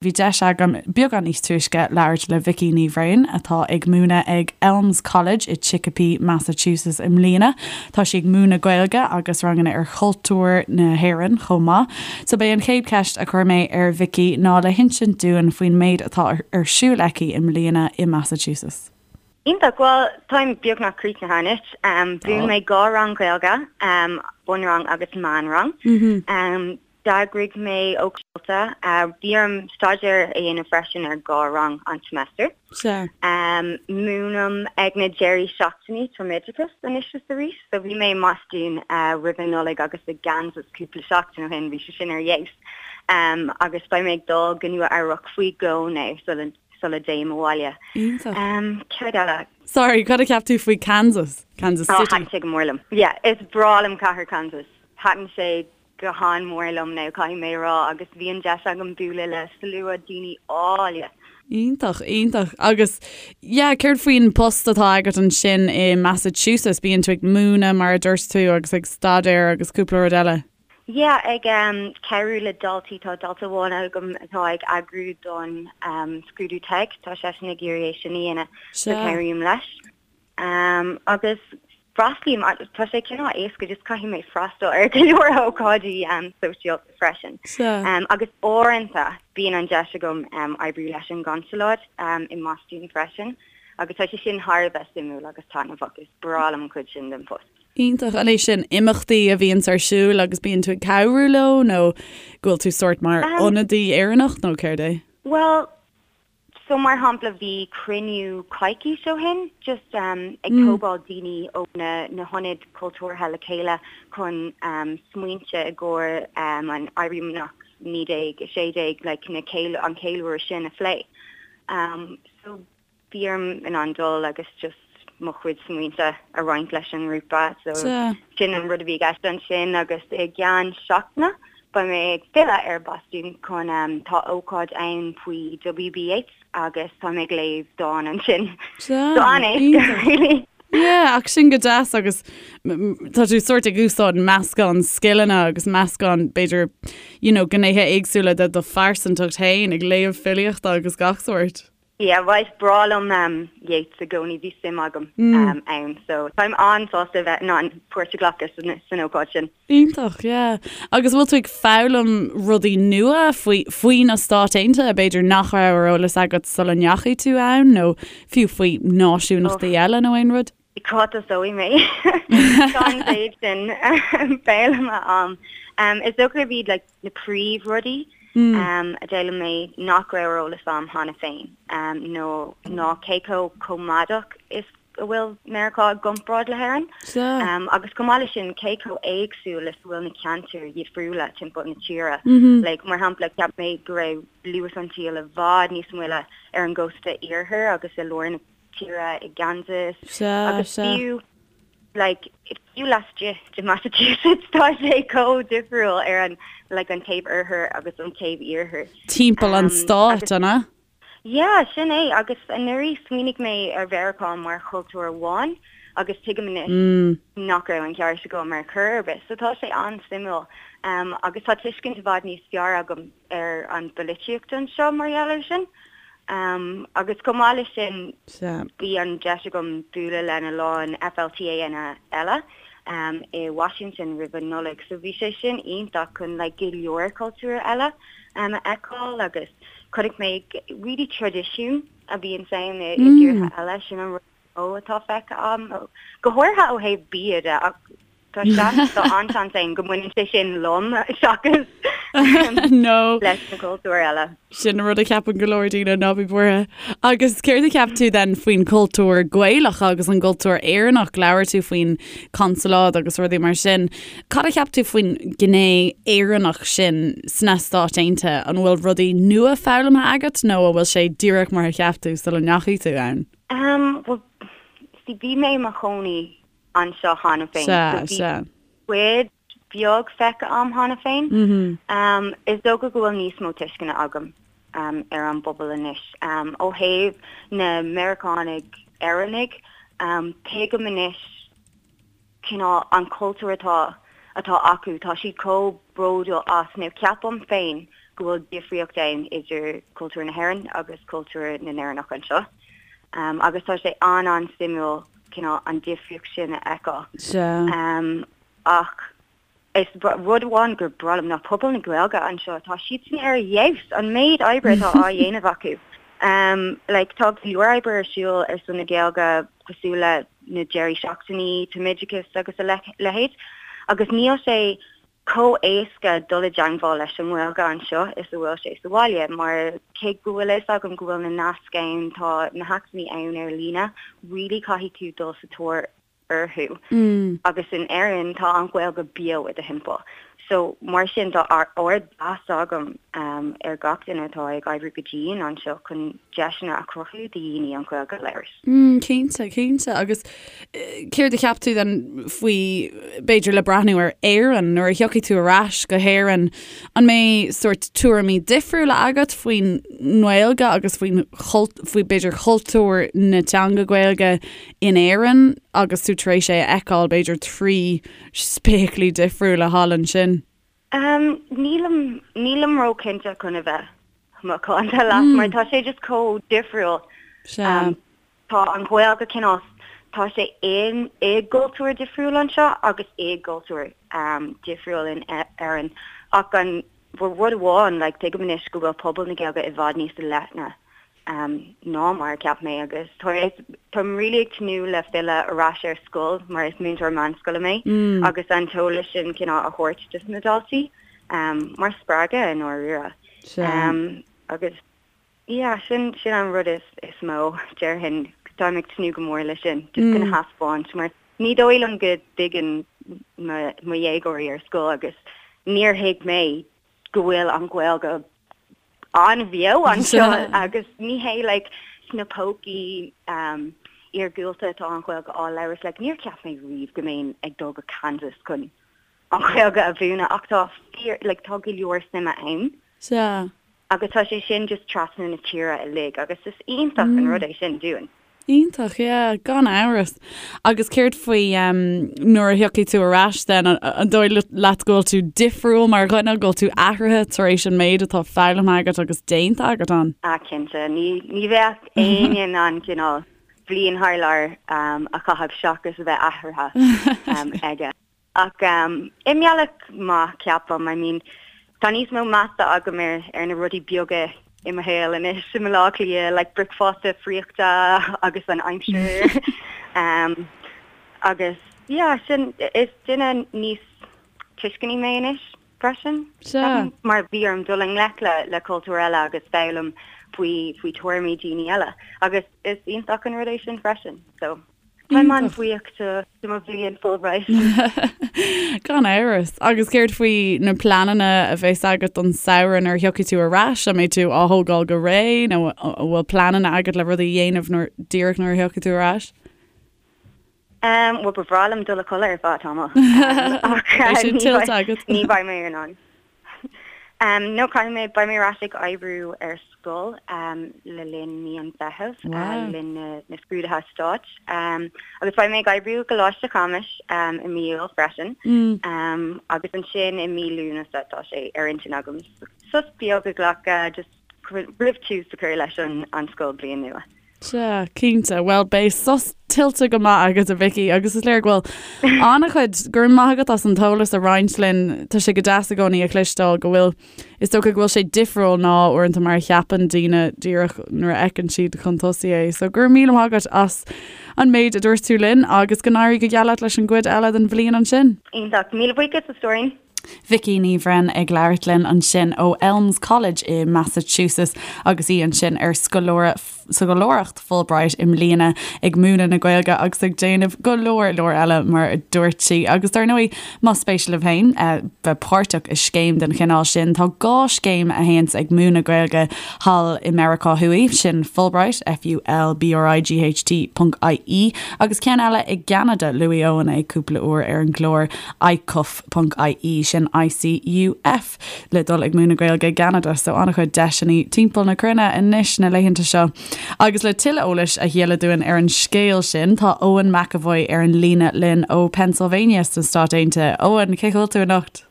Bhí deis agam beagán níos túisce labhairt le Vicky Ní Bhraoin, atá ag múineadh ag Elms College i Chicopee, Massachusetts i mbliana. Tá sí ag múineadh Gaeilge agus ranganna ar chultúr na hÉireann chomh maith. So b'é an chéad cheist a chuir mé ar Vicky ná le hinsint dúinn faoin méid atá ar siúl aici i mbliana i Massachusetts. Iontach, bhuel táim beagnach críochnaithe anois. Mhúin mé 2 rang Gaeilge, bunrang agus meánrang. D'eagraigh mé ócáid. Bhí orm staidéar a dhéanamh freisin ar 2 rang an seimeastar. Sea. Múinim ag na deirí seachtainí tumoideachas anois is arís. So bhí mé i mBostún roimh an Nollaig agus i gKansas cúpla seachtain ó shin, bhí sé sin ar fheabhas. Agus beidh mé ag dul go Nua Eabhrac faoi dhó now sula sula dtéim abhaile. Iontach. Céard eile? Sorry, cad a cheap tú faoi Kansas? Kansas City? Oh, thaitin sé go mór liom. Yeah, is breá liom cathair Kansas. Thaitin sé go han-mhór liom now, caithfidh mé a rá, agus bhí an deis agam bualadh le slua daoine áille. Iontach, iontach. Agus, yeah, céard faoin post atá agat ansin i Massachusetts? Bíonn tú ag múineadh, mar a dúirt tú, agus ag staidéar agus cúpla rud eile. Yeah, ag cabhrú le daltaí, tá dalta amháin agam atá ag eagrú don scrúdú TEG, tá seisean ag iarraidh é sin a dhéanamh, so cabhraím leis. Agus freastlaím, tá sé cineál éasca, just caithfidh mé freastal ar go leor ócáidí sóisialta freisin. Agus uaireanta bíonn an deis agam oibriú leis an gconsalóid i mBostún freisin agus tá sé sin thar a bheith suimiúil agus taitneamhach, is breá liom an chuid sin den phost. Iontach. An é sin imeachtaí a bhíonns ar siúl agus bíonn tú ag cabhrú leo nó go bhfuil tú sórt mar ionadaí Éireannach nó céard é? Bhuel, So mar shampla bhí cruinniú coicís ó shin just ag tógáil daoine ó na na hionaid cultúrtha le chéile chun smaointe i gcomhair an Éirí Amach 1916 like na an ceiliúradh sin a phlé. So bhí orm in ann dul agus just mo chuid smaointe a roinnt leis an ngrúpa so sin an rud a bhí i gceist ansin agus i gceann seachtaine beidh mé ag filleadh ar Bostún chun tá ócáid ann faoi W.B. Yeats agus tá mé ag léamh dán ansin. So an-éasca really. Yeah, ach sin go deas agus tá tú sórt ag úsáid meascán scileanna agus meascán b'fhéidir you know gnéithe éagsúla de do phearsantacht féin ag léamh filíochta agus gach sórt. Yeah, bhuel is breá liom Yeats i gcónaí, bhí suim agam ann so táim an-sásta a bheith in ann páirt a ghlacadh san ócáid sin. Iontach, yeah. Agus bhfuil tú ag foghlaim rudaí nua faoi faoi na Stáit Aontaithe, b'fhéidir nach raibh ar eolas agat sula ndeachaigh tú ann nó fiú faoi náisiúnachtaí eile nó aon rud? Cá dtosóidh mé? Tá an mhéid sin foghlamtha a'm. Is dócha gurb iad like na príomhrudaí a d'fhoghlaim mé nach raibh ar eolas a'm cheana féin nó ná cé chomh coimeádach is a bhfuil Meiriceá i gcomparáid le hÉirinn. Agus chomh maith leis sin cé chomh éagsúil is a bhfuil na ceantair dhifriúla timpeall na tíre. Like mar shampla cheap mé go raibh luas an tsaoil i bhfad níos moille ar an gcósta iarthair agus i lár na tíre i gKansas agus fiú like fiú laistigh de Massachusetts tá sé chomh difriúil ar an like an taobh oirthir agus an taobh iarthair. Timpeall an stáit, an ea? Yeah, sin é agus anuraidh smaoinigh mé ar Mheiriceá mar chultúr amháin agus tuigim anois nach raibh an ceart agam ar chor ar bith. So tá sé an-suimiúil agus tá tuiscint i bhfad níos fearr agam ar an bpolaitíocht anseo mar gheall air sin. Agus chomh maith leis sin, bhí an deis agam bualadh lena lán FLTAnna eile i Washington roimh an Nollaig, so bhí sé sin iontach chun like go leor cultúr eile a fheiceáil agus chonaic mé really traidisiún a bhíonn ann i dtíortha eile, sin an rud is mó atá feicthe agam, go háirithe ó thaobh bia de ach Tá seans, tá an-seans ann go mbaineann sé sin liom seachas leis na cultúir eile. Sin an rud a cheapann go leor daoine, ná bí buartha. Agus céard a cheap tú then faoin chultúr Gaelach agus an gcultúr Éireannach? Labhair tú faoin consalóid agus rudaí mar sin. Cad a cheap tú faoin gné Éireannach sin sna Stáit Aontaithe? An bhfuil rudaí nua foghlamtha agat nó an bhfuil sé díreach mar a cheap tú sula ndeachaigh tú ann? Bhuel, see, bhí mé i mo chónaí anseo cheana féin. Sea, sea. Cuid bheag feicthe a'm cheana féin. Is dócha go bhfuil níos mó tuisceana agam ar an bpobal anois. Ó thaobh na Meiriceánaigh Éireannaigh, tuigim anois cineál an cultúr atá atá acu. Tá siad chomh bródúil as, nó ceapaim féin. go bhfuil difríocht ann idir cultúr na hÉireann agus cultúr na nÉireannach anseo. Agus tá sé an-an-suimiúil cineál an difríocht sin a fheiceáil. Sea. Ach is rud amháin gur breá liom ná pobal na Gaeilge anseo, tá siadsan ar fheabhas, an méid oibre atá á dhéanamh acu. Like tá go leor oibre ar siúl ar son na Gaeilge cosúil le na deirí seachtainí, tumoideachas agus a leithéid agus níl sé chomh éasca dul i dteangmháil leis an nGaeilge anseo is a bhfuil sé sa bhaile mar cé go bhfuil a fhios agam go bhfuil na naisc ann, tá na hacmhainní ann ar líne, really caithfidh tú dul sa tóir orthu. Agus in Éirinn tá an Ghaeilge beo i do thimpeall. So mar sin tá ardmheas agam ar gach duine atá ag oibriú go dian anseo chun deiseanna a chruthú do dhaoine an Ghaeilge a labhairt. Cinnte, cinnte. Agus céard a cheap tú then faoi, b'fhéidir le breathnú ar Éirinn, nuair a thiocfaidh tú ar ais go hÉirinn, an mbeidh sórt tuairimí difriúla agat faoin nGaeilge agus faoin, faoi b'fhéidir chultúr na teanga Gaeilge in Éirinn agus tú tar éis é a fheiceáil b'fhéidir trí spéaclaí difriúla thall ansin? Nílim, nílim ró-chinnte chun a bheith macánta leat mar tá sé just chomh difriúil. Sea. Tá an Ghaeilge cineál, tá sé in, i gcultúr difriúil anseo agus i gcultúr difriúil in Éirinn ach an rud amháin, like, tuigim anois go bhfuil pobal na Gaeilge i bhfad níos leithne ná mar a cheap mé agus táim really ag tnúth le filleadh ar ais ar scoil mar is múinteoir meánscoile mé agus an t-eolas sin cineál a thabhairt dos na daltaí mar spreagadh i ndáiríre. Agus yeah sin sin an rud is is mó déarfainn táim ag tnúth go mór leis sin just chun a thaispeáint mar ní dóigh liom go dtuigeann mo mo dhéagóirí ar scoil agus níor thuig mé go bhfuil an Ghaeilge an-bheo anseo agus ní hé like sna pócaí um, iargúlta atá an Ghaeilge á labhairt like níor cheap mé riamh go mbeinn ag dul go Kansas chun an Ghaeilge a mhúineadh ach tá fíor like tá go leor suime ann. Sea. Agus tá sé sin just trasna na tíre uilig agus is iontach an rud é sin dúinn. Iontach, yeah, gan amhras. Agus céard faoi nuair a thiocfaidh tú ar ais then, an dóigh leat go bhfuil tú difriúil mar dhuine, go bhfuil tú athraithe tar éis an méid atá foghlamtha agat agus déanta agat ann? Ah, cinnte. Ní, ní bheadh éinne in ann cineál bliain thar lear a chaitheamh seachas a bheith athraithe aige. Ach i mbealach maith, ceapaim. I mean, tá níos mó measa agam ar ar na rudaí beaga i mo shaol anois i mBaile Átha Cliath, like bricfeasta friochta agus an aimsir. um, agus yeah, sin is duine níos tuisceanaí mé anois freisin. Sea. Mar bhí orm dul i ngleic le le cultúr eile agus foghlaim faoi faoi tuairimí daoine eile. Agus is iontach an rud é sin freisin. So. Táim an-bhuíoch de mo bhliain Fulbright. Gan amhras. Agus céard faoi na pleananna a bheas agat don samhradh nuair a thiocfaidh tú ar ais? An mbeidh tú á thógáil go réidh nó an bhfuil pleananna agat le rudaí a dhéanamh nuair, díreach nuair a thiocfaidh tú ar ais? Bhuel, ba bhreá liom dul a chodladh ar feadh tamaill. Ach Beidh sin tuillte agat. ní bheidh mé in ann. No, caithfidh mé, beidh mé ar ais ag oibriú ar scoil le linn mí an Mheithimh, le linn na scrúduithe stáit. Agus beidh mé ag oibriú i gColáiste Chamuis i mí Iúil freisin. Agus ansin i mí Lúnasa tá sé ar intinn agam sos beag a ghlacadh just roimh tús a chur leis an scoilbhliain nua. Sea, cinnte. Bhuel, beidh sos tuillte go maith agat, a Vicky, agus is léir go bhfuil an-chuid, go raibh maith agat as an t-eolas a roinnt linn. Tá sé go deas i gcónaí a chloisteáil go bhfuil, is dócha go bhfuil sé difriúil ná uaireanta mar a cheapann daoine díreach nuair a fheiceann siad chun tosaigh é. So go raibh míle maith agat as an méid a dúirt tú linn agus go n-éirí go geal leat leis an gcuid eile den bhliain ansin. Iontach. Míle buíochas, a stóirín. Vicky Ní Bhroin ag labhairt linn ansin ó Elms College i Massachusetts agus í ansin ar scoláireacht Fulbright i mbliana ag múineadh na Gaeilge agus ag déanamh go leor leor eile mar a dúirt sí. Agus dar ndóigh más spéis libh féin bheith páirteach i scéim den chineál sin tá 2 scéim a théanns ag múineadh Gaeilge thall i Meiriceá Thuaidh, sin Fulbright, F-U-L-B-R-I-G-H-T ponc I-E, agus ceann eile i gCeanada, luaigh Eoin é cúpla uair ar an gclár, icuf ponc ie, sin ICUF, le dul ag múineadh Gaeilge i gCeanada, so an-chuid deiseanna timpeall na cruinne anois na laethanta seo. Agus le tuilleadh eolais a dhíoladh dúinn ar an scéal sin, tá Eoin McEvoy ar an líne linn ó Pennsylvania sna Stáit Aontaithe. Eoin, cén chaoi a bhfuil tú anocht?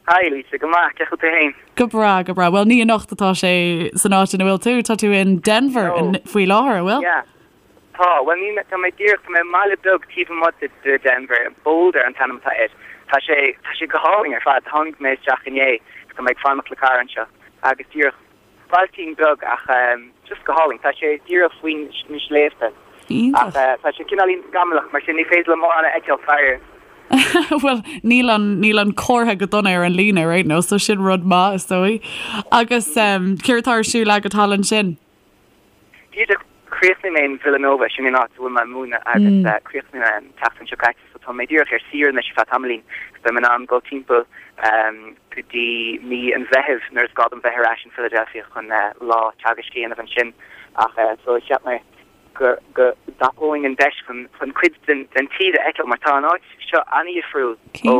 Hi Lisa, go maith, cén chaoi a bhfuil tú féin? Go breá, go breá. Bhuel, ní anocht atá sé san áit ina bhfuil tú, tá tú in Denver faoi láthair, an bhfuil? Yeah, tá. Bhuel, níl mé, tá mé díreach, tá mé i mbaile beag taobh amuigh de, de Denver, Boulder an t-ainm atá air. Tá sé, tá sé go hálainn ar fad. Tháinig mé isteach inné, tá mé ag fanacht le cara anseo agus díreach Bailtín beag ach just go hálainn. Tá sé díreach faoi na sléibhte. Iontach. Ach tá sé cineáilín scamallach mar sin ní féidir liom mórán a fheiceáil faraor. Bhuel, níl an, níl an comhartha go dona ar an líne ar aon nós, so sin rud maith is dóigh. Agus céard atá ar siúl agat thall ansin? Díreach chríochnaigh mé in Villanova, sin an áit a bhfuil mé ag múineadh agus chríochnaigh mé an tseachtain seo caite so tá mé díreach ar saoire anois ar feadh tamaillín agus beidh mé in ann dul timpeall go dtí mí an Mheithimh nuair is gá dom bheith ar ais in Philadelphia chun lá teagaisc a dhéanamh ansin ach so cheap mé go go dtapóinn an deis chun chun cuid den den tír a fheiceáil mar tá an áit seo an-dhifriúil ó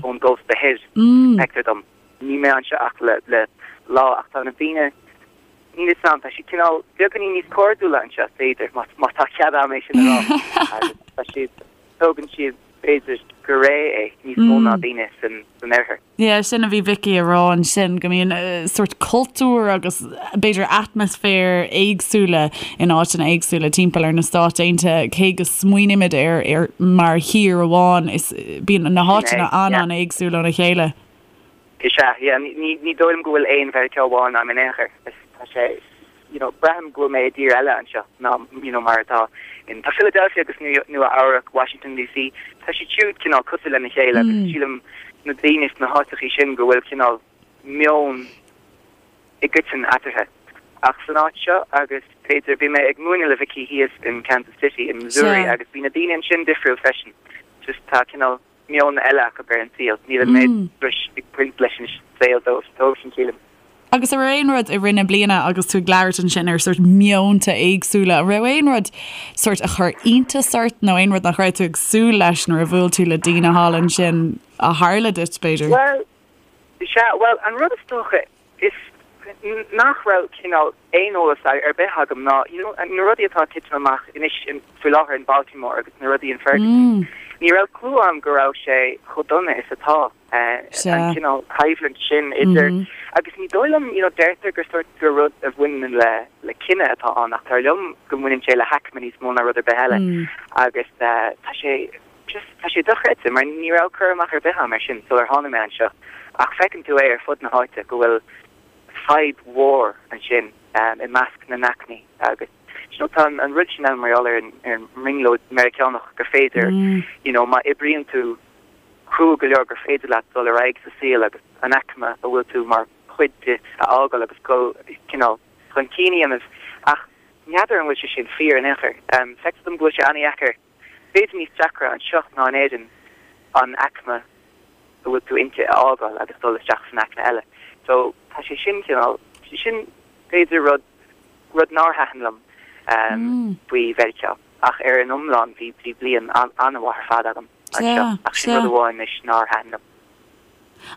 ón gcósta thoir, feictear dom. Níl mé anseo ach le le lá ach tá na daoine Níl fhios a'm, tá siad cineál beagáinín níos cairdiúla anseo, b'fhéidir, má tá cead a'm é sin a rá. Agus tá siad, tógann siad, b'fhéidir, go réidh é, níos mó ná daoine san oirthear. Yeah, sin a bhí Vicky a rá ansin, go mbíonn sórt cultúr agus b'fhéidir atmaisféar éagsúla in áiteanna éagsúla timpeall ar na Stáit Aontaithe, cé go smaoinímid air ar mar thír amháin, is bíonn na háiteanna an-an-éagsúil óna chéile. Is ea, yeah, ní, ní dóigh liom go bhfuil aon Mheiriceá amháin ann in aon chor. Is, tá sé, you know, braithim go bhfuil mé i dtír eile anseo ná, you know, mar atá in, tá Philadelphia agus Nua, Nua Eabhrac, Washington DC, tá siad siúd cineál cosúil lena chéile agus sílim na daoine sna háiteachaí sin go bhfuil cineál meon i gcoiteann eatarthu. Ach san áit seo agus b'fhéidir, bhí mé ag múineadh le Vicky thíos in Kansas City in Missouri agus bhí na daoine ansin difriúil freisin. Just tá cineál meon eile acu ar an saol. Níl an méid struis ag baint leis an saol dóibhsean, sílim. Agus an raibh aon rud i rith na bliana agus tú ag labhairt ansin ar sórt meonta éagsúla, an raibh aon rud sórt a chuir iontas ort nó aon rud nach raibh tú ag súil leis nuair a bhuail tú le daoine thall ansin a tharla duit, b'fhéidir? Bhuel, sea, bhuel, an rud is dócha Is nach raibh cineál aon eolas ar bith agam ná you know na rudaí atá ag titim amach anois faoi láthair in Baltimore agus na rudaí in Ferguson. Ní raibh clue agam go raibh sé chomh dona is atá, an cineál coimhlint sin idir agus ní dóigh liom you know deirtear gur sórt gur rud a bhaineann le le cine atá ann ach dar liom go mbaineann sé le haicme níos mó ná rud ar bith eile agus tá sé Just, tá sé dochreidte, mar ní raibh cur amach ar bith agam air sin sular tháinig mé anseo, ach feiceann tú é ar fud na háite go bhfuil fadhb mhór ansin i measc na n-aicmí agus you know tá an rud sin ann mar gheall ar an ar an mbrionglóid Meiriceánach gur féidir you know má oibríonn tú crua go leor gur féidir leat dul ar aghaidh sa saol agus an aicme a bhfuil tú mar chuid di a fhágáil agus dul cineál chun cinn a dhéanamh ach n'fheadar an bhfuil sé sin fíor in aon chor. Feictear dom go bhfuil sé an-dheacair B'fhéidir níos deacra anseo ná in Éirinn an aicme a bhfuil tú inti a fhágáil agus dul isteach san aicme eile. So tá sé sin cineál, sin b'fhéidir rud, rud nár thaitin liom faoi Mheiriceá ach ar an iomlán bhí, bhí bliain an-mhaith ar fad agam anseo ach sin rud amháin anois nár thaitin liom.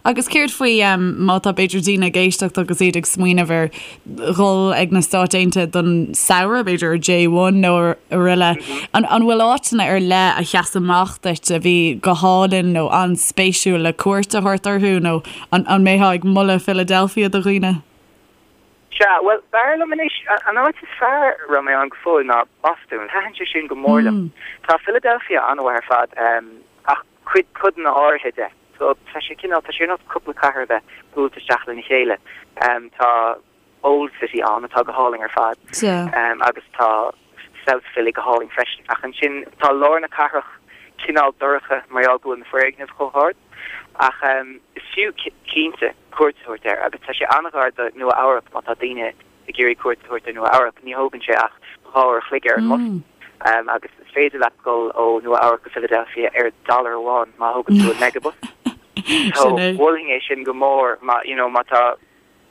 Agus céard faoi má tá b'fhéidir daoine ag éisteacht agus iad ag smaoineamh ar dhul ag na Stáit Aontaithe don samhradh, b'fhéidir ar J1 nó araile, an bhfuil áiteanna ar leith a sheas amach duit a bhí go hálainn nó an-spéisiúil le cuairt a thabhairt orthu nó an mbeifeá ag moladh Philadelphia do dhaoine? Sea, bhuel, b'fhearr liom anois, an áit is fearr a raibh mé ann go fóill ná Bostún. Thaitin sé sin go mór liom. Tá Philadelphia an-mhaith ar fad, ach cuid, codanna áirithe de. So, tá sé cineál, tá sé ar nós cúpla cathair a bheith buailte isteach lena chéile. Tá Old City ann atá go hálainn ar fad. Agus tá South Philly go hálainn freisin. Ach ansin tá lár na cathrach cineál dorcha mar gheall go bhfuil na foirgnimh chomh hard. Ach is fiú cinnte cuairt a thabhairt air agus tá sé an-ghar do Nua Eabhrac má tá daoine ag iarraidh cuairt a thabhairt ar Nua Eabhrac. Ní thógann sé ach 2 uair a chloig ar an mbus agus is féidir leat dul ó Nua Eabhrac go Philadelphia ar dollar amháin má thógann tú an Megabus. So mholfainn é sin go mór má you know má tá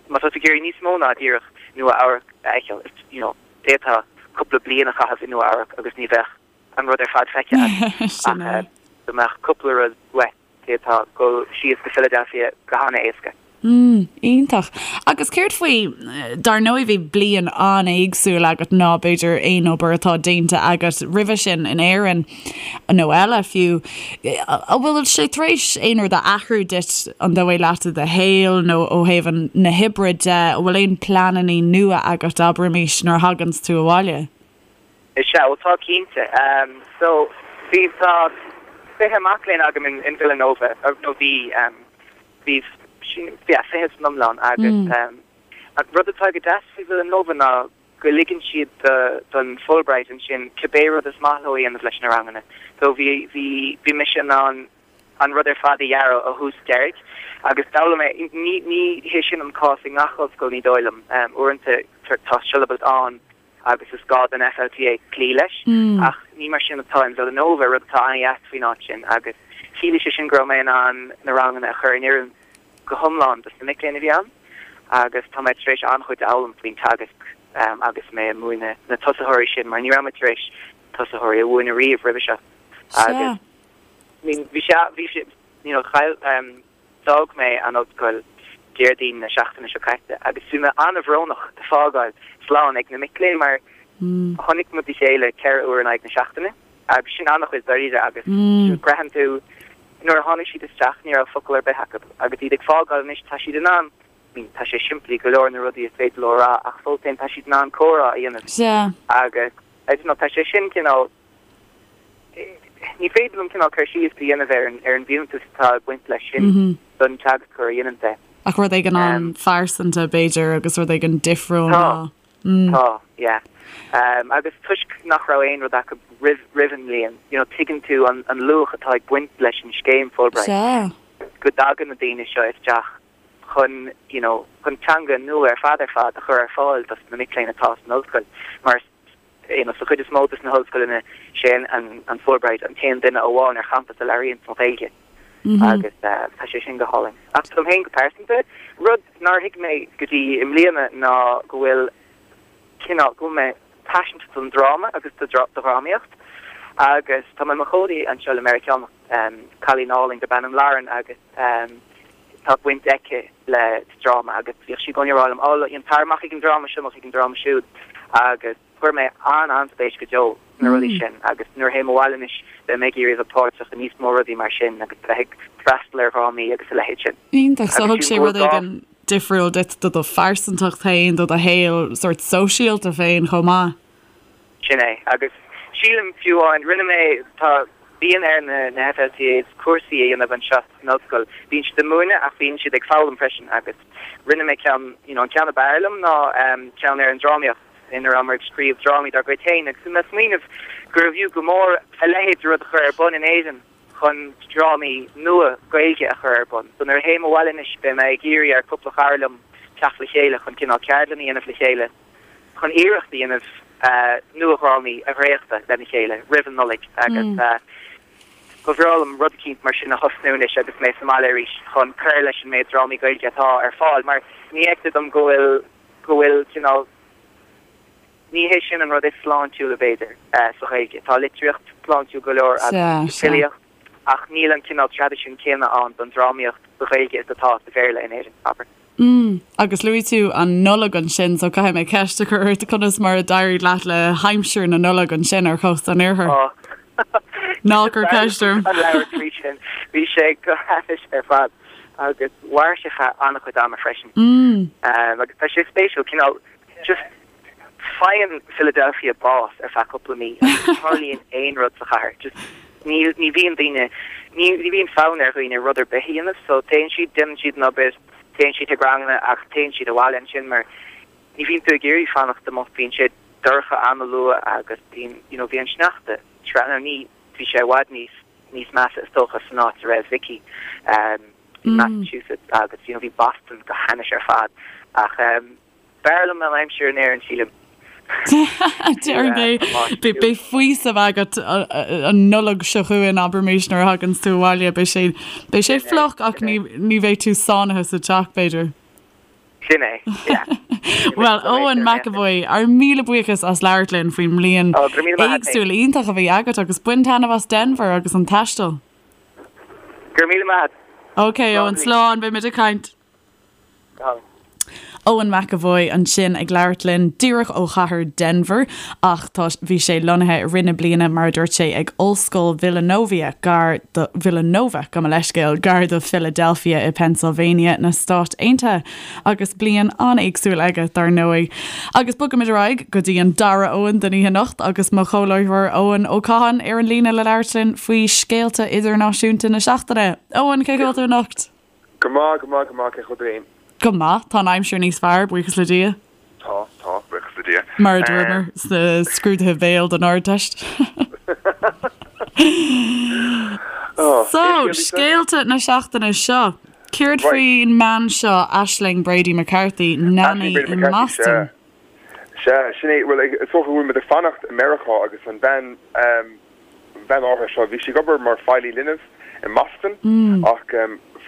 má tá tú ag iarraidh níos mó ná díreach Nua Eabhrac a fheiceáil. You know d'fhéadfá cúpla bliain a chaitheamh i Nua Eabhrac agus ní bheadh an rud ar fad feicthe agat ach dá mbeadh cúpla rud uait. D'fhéadfá dul síos go Philadelphia go han-éasca. Mm, iontach. Agus céard faoi, dar ndóigh bhí bliain an-éagsúil agat ná b'fhéidir aon obair atá déanta agat roimhe sin in Éirinn, nó eile fiú. An bhfuil sé tar éis aon rud a athrú duit, an dóigh leat i do shaol nó ó thaobh na hoibre de? An bhfuil aon pleananna nua agat, abraimis, nuair a thaganns tú abhaile? Is ea, bhuel tá cinnte. So, bhí, tá 20 mac léinn agam in Villanova, nó bhí, bhí, yeah, 20 san iomlán agus an rud atá go deas faoi Villanova ná go ligeann siad don Fulbright ansin cibé rud is maith leo a dhéanamh leis na ranganna. So bhí, bhí, bhí mise in ann an rud ar fad a dhearadh ó thús deiridh agus d'fhoghlaim mé, ní, ní hé sin an cás i ngach ollscoil ní dóigh liom, uaireanta tá siollabas ann agus is gá don FLTA cloí leis, ach ní mar sin atá in Villanova, rud atá an-dheas faoin áit sin, agus chiallaigh sé sin go raibh mé in ann na ranganna a chur in oiriúint go hiomlán dos na mic léinn a bhí ann, agus tá mé tar éis an-chuid a fhoghlaim faoin teagasc agus mé ag múineadh na tosaitheoirí sin, mar ní raibh mé tar éis tosaitheoirí a mhúineadh riamh roimhe seo. Agus bhí sé, bhí sé, you know, chaill, D'fhág mé an ollscoil Déardaoin na seachtaine seo caite agus bhí mé an-bhrónach ag fágáil slán ag na mic léinn mar chonaic muid a chéile 4 uair in aghaidh na seachtaine agus sin an-chuid dáiríre agus braitheann tú nuair a tháinig siad isteach ní raibh focal ar bith acu agus iad ag fágáil anois tá siad in ann I mean tá sé simplí go leor na rudaí is féidir leo a rá ach fós féin tá siad in ann comhrá a dhéanamh agus I don't know tá sé sin cineál Ní féidir liom cineál cur síos a dhéanamh ar an ar an bhfiúntas atá ag baint leis sin don teagascóir a dhéanann é. Ach rud éigin an-phearsanta, b'fhéidir, agus rud éigin difriúil ná. Tá, tá, yeah. Agus toisc nach raibh aon rud acu roimh roimh an mbliain, you know, tuigeann tú an an luach atá ag baint leis an scéim Fulbright. Sea. Go dtagann na daoine seo isteach chun, you know, chun teanga nua ar fad ar fad a chur ar fáil dos na mic léinn atá san ollscoil mar you know, sa chuid is mó dos na hollscoileanna sé an an Fulbright an t-aon duine amháin ar champas a labhraíonn an Ghaeilge agus tá sé sin go hálainn. Ach dom féin go pearsanta, rud nár thuig mé go dtí i mbliana ná go bhfuil cineál, go bhfuil mé paiseanta don dráma agus do dhrámaíocht agus tá mé i mo chónaí anseo le Meiriceánach, cailín álainn darb ainm Lauren agus tá baint aici le dráma agus bhíodh sí i gcónaí ag rá liom, oh, you know, tar amach ag an dráma seo, amach ag an dráma siúd agus chuir mé an-an-spéis go deo sna rudaí sin agus nuair a théim abhaile anois beidh mé ag iarraidh a bheith páirteach i níos mó rudaí mar sin agus bheith ag freastal ar dhrámaí agus a leithéid sin. Iontach, so thug sé rud éigin difriúil duit do do phearsantacht féin, do do shaol sórt sóisialta féin chomh maith. Sin é. Agus sílim, fiú amháin, rinne mé, tá, bíonn ar na, na FLTAs cúrsaí a dhéanamh anseo san ollscoil. Bíonn siad ag múineadh ach bíonn siad ag foghlaim freisin agus rinne mé ceann, you know, an ceann ab fhearr liom ná ceann ar an drámaíocht ina rabhamar ag scríobh drámaí dár gcuid féin agus bhí mé ag smaoineamh gurbh fhiú go mór a leithéid de rud a chur ar bun in Éirinn chun drámaí nua Gaeilge a chur ar bun. So nuair a théim abhaile anois beidh mé ag iarraidh ar cúpla cara liom teacht le chéile chun cineál ceardlann a dhéanamh le chéile chun iarracht a dhéanamh nua-dhrámaí a dhréachtadh lena chéile roimh an Nollaig agus ba bhreá liom rud eicínt mar sin a thosnú anois agus mé sa mbaile arís chun cur leis an méid drámaí Gaeilge atá ar fáil mar ní fheictear dom go bhfuil go bhfuil cineál ní hé sin an rud is sláintiúla b'fhéidir sa Ghaeilge. Tá litríocht sláintiúil go leor agus filíocht ach níl an cineál traidisiún céanna ann don drámaíocht sa Ghaeilge is atá sa Bhéarla in Éirinn, abair. Mm. Agus luaigh tú an Nollaig ansin, so caithfidh mé ceist a chur ort, conas mar a d'éirigh leat le haimsir na Nollag ansin ar chósta an iarthair? Oh. Ná cuir ceist orm. An labhairt faoi sin. Bhí sé go hainnis ar fad agus mhair sé feadh an-chuid ama freisin. Mm. Agus tá sé spéisiúil, cineál just Faigheann Philadelphia bás ar feadh cúpla mí agus ní tharlaíonn aon rud sa chathair. Just ní ní bhíonn daoine, ní ní bhíonn fonn ar dhaoine rud ar bith a dhéanamh so téann siad, déanann siad an obair, téann siad chuig ranganna ach téann siad abhaile ansin mar ní bhíonn tú ag iarraidh fanacht amuigh, bíonn sé dorcha an-luath agus bíonn you know bhí an sneachta tráth nó ní bhí sé i bhfad níos níos measa is dócha san áit a raibh Vicky um in Massachusetts agus you know bhí Boston go hainnis ar fad ach um B'fhearr liom an aimsir in Éirinn, sílim. Déarfainn é. Beidh faoiseamh agat an Nollaig seo chugainn, abraimis, nuair a thaganns tú abhaile. Beidh sé, beidh sé fliuch ach ní, ní bheidh tú sáinnithe sa teach, b'fhéidir. Sin é, yeah. Bhuel, Eoin McEvoy, ár míle buíochas as labhairt linn faoin mbliain Ó, go raibh míle maith agat féin. éagsúil iontach a bhí agat agus bain taitneamh as Denver agus an taisteal. Go raibh míle maith agat. Ok, Eoin, slán, beidh muid ag caint. Go hálainn. Eoin McEvoy ansin ag labhairt linn díreach ó chathair Denver ach tá, bhí sé lonnaithe i rith na bliana mar a dúirt sé ag Ollscoil Villanovia gar do, Villanova, gabh mo leithscéal, gar do Philadelphia i Pennsylvania na Stát Aontaithe agus bliain an-éagsúil aige dar ndóigh. Agus bogaimid ar aghaidh go dtí an dara Eoin den oíche anocht agus mo chomhláithreoir Eoin Ó Catháin ar an líne le labhairt linn faoi scéalta idirnáisiúnta na seachtaine. Eoin, cén chaoi a bhfuil tú anocht? Go maith, go maith, go maith, cén chaoi a bhfuil tú féin? Go maith, tá an aimsir níos fearr, buíochas le Dia. Tá, tá, buíochas le Dia. Mar a dúramar sna scrúduithe béil don Ardteist. So, scéalta na seachtaine seo. Céard faoin mbean seo, Aisling Brady McCarthy, nanny i mBoston? Sea, sin é. Bhuel, is dócha go bhfuil muid ag fanacht i Meiriceá agus an bhean, an bhean áirithe seo, bhí sí ag obair mar feighlí linbh i mBoston ach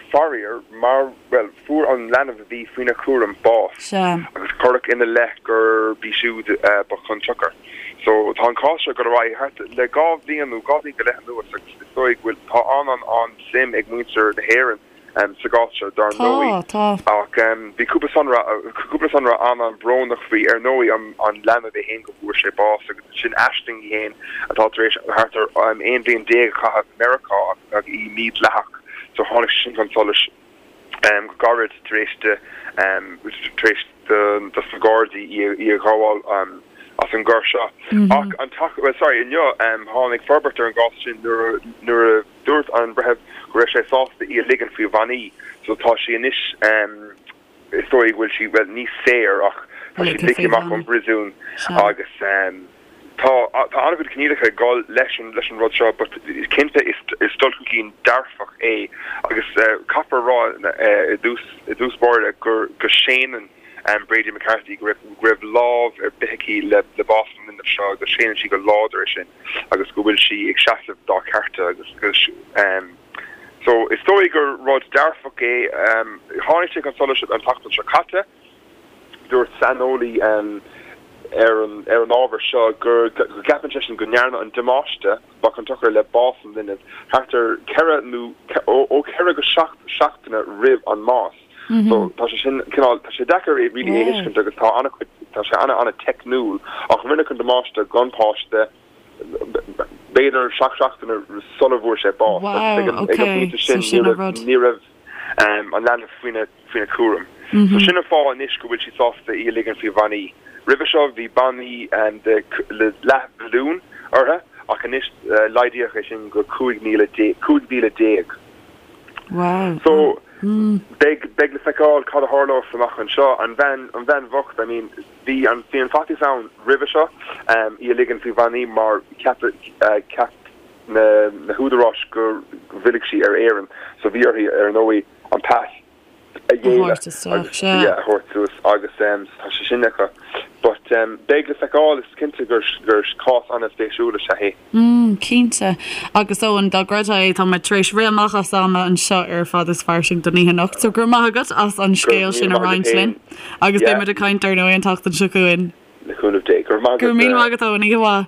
faraor, mar, bhuel, fuair an leanbh a bhí faoina cúram bás agus cuireadh ina leith gurb í siúd ba chun tsiocair. So, tá an cás seo ag dul ar aghaidh thart le 2 bhliain nó 2 bhliain go leith anuas agus is dóigh go bhfuil, tá an-an-an-suim ag muintir na hÉireann sa gcás seo, dar ndóigh. Tá, tá. Ach bhí cúpla sonra, cúpla sonra an-an-bhrónach faoi, ar ndóigh, an leanbh é féin go bhfuair sé bás agus ansin Aisling í féin atá tar éis thart ar 11 bhliain a chaitheamh i Meiriceá agus í mídhleathach so tháinig sé sin chun solais go gairid tar éis di, tar éis dos na Gardaí í a ghabháil as an gcoir seo. Ach an tseachtain, well sorry, inniu tháinig forbairt ar an gcás sin nuair nuair a Dúirt an breitheamh go raibh sé sásta í a ligean faoi bhannaí so tá sí anois, is dóigh go bhfuil sí, bhuel, ní saor ach tá sí ligthe amach ón bpríosún agus tá tá an-chuid coinníollacha ag dul leis an leis an rud seo but cinnte is is dul chun cinn dearfach é agus caithfear a rá i dtús i dtús báire gur go séanann Brady McCarthy go raibh go raibh lámh ar bith aici le le bás an linbh seo go séanann sí go láidir é sin. agus go bhfuil sí ag seasamh dá cearta agus so is dóigh gur rud dearfach é. Tháinig sé chun solais an tseachtain seo caite, dúirt saineolaí ar an ar an ábhar seo gur go gceapann seisean go ndearnadh an damáiste ba chun tsochair le bás an linbh thart ar cheithre nó ó cheithre go seacht seachtaine roimh an mbás. So tá sé sin cineál, tá sé deacair é really a thuiscint agus tá an-chuid, tá sé an-an-teicniúil ach rinneadh an damáiste don pháiste b'fhéidir seacht seachtaine sula bhfuair sé bás agus ag an ag an bpointe sin ní raibh ní raibh an leanbh faoina faoina cúram. So sin an fáth anois go bhfuil siad sásta í a ligean faoi bhannaí. Roimhe seo bhí bannaí de le leathmhilliún uirthi ach anois laghdaíodh é sin go 15,000 15,000. Wow. So, beidh, beidh le feiceáil cad a tharlós amach anseo. An bhean, an bhean bhocht, I mean, bhí an, bhí an faitíos ann roimhe seo, í a ligean faoi bhannaí mar cheap, cheap na, na húdaráis go bhfillfeadh sí ar Éirinn. So bhí uirthi, ar ndóigh, an pas a ghéilleadh agus, yeah, a thabhairt suas agus tá sé sin acu. But beidh le feiceáil, is cinnte gur, gur cás an-spéisiúil is ea é. Mm, cinnte. Agus Eoin, dá gcreidfeá é, tá muid tar éis rith amach as am anseo ar Fada is Fairsing don oíche anocht, so go raibh maith agat as an scéal sin a roinnt linn. Agus beidh muid ag caint ar ndóigh an tseachtain seo chugainn. Le cúnamh Dé. Go raibh maith agat. Go raibh míle maith agat, Eoin. Oíche mhaith.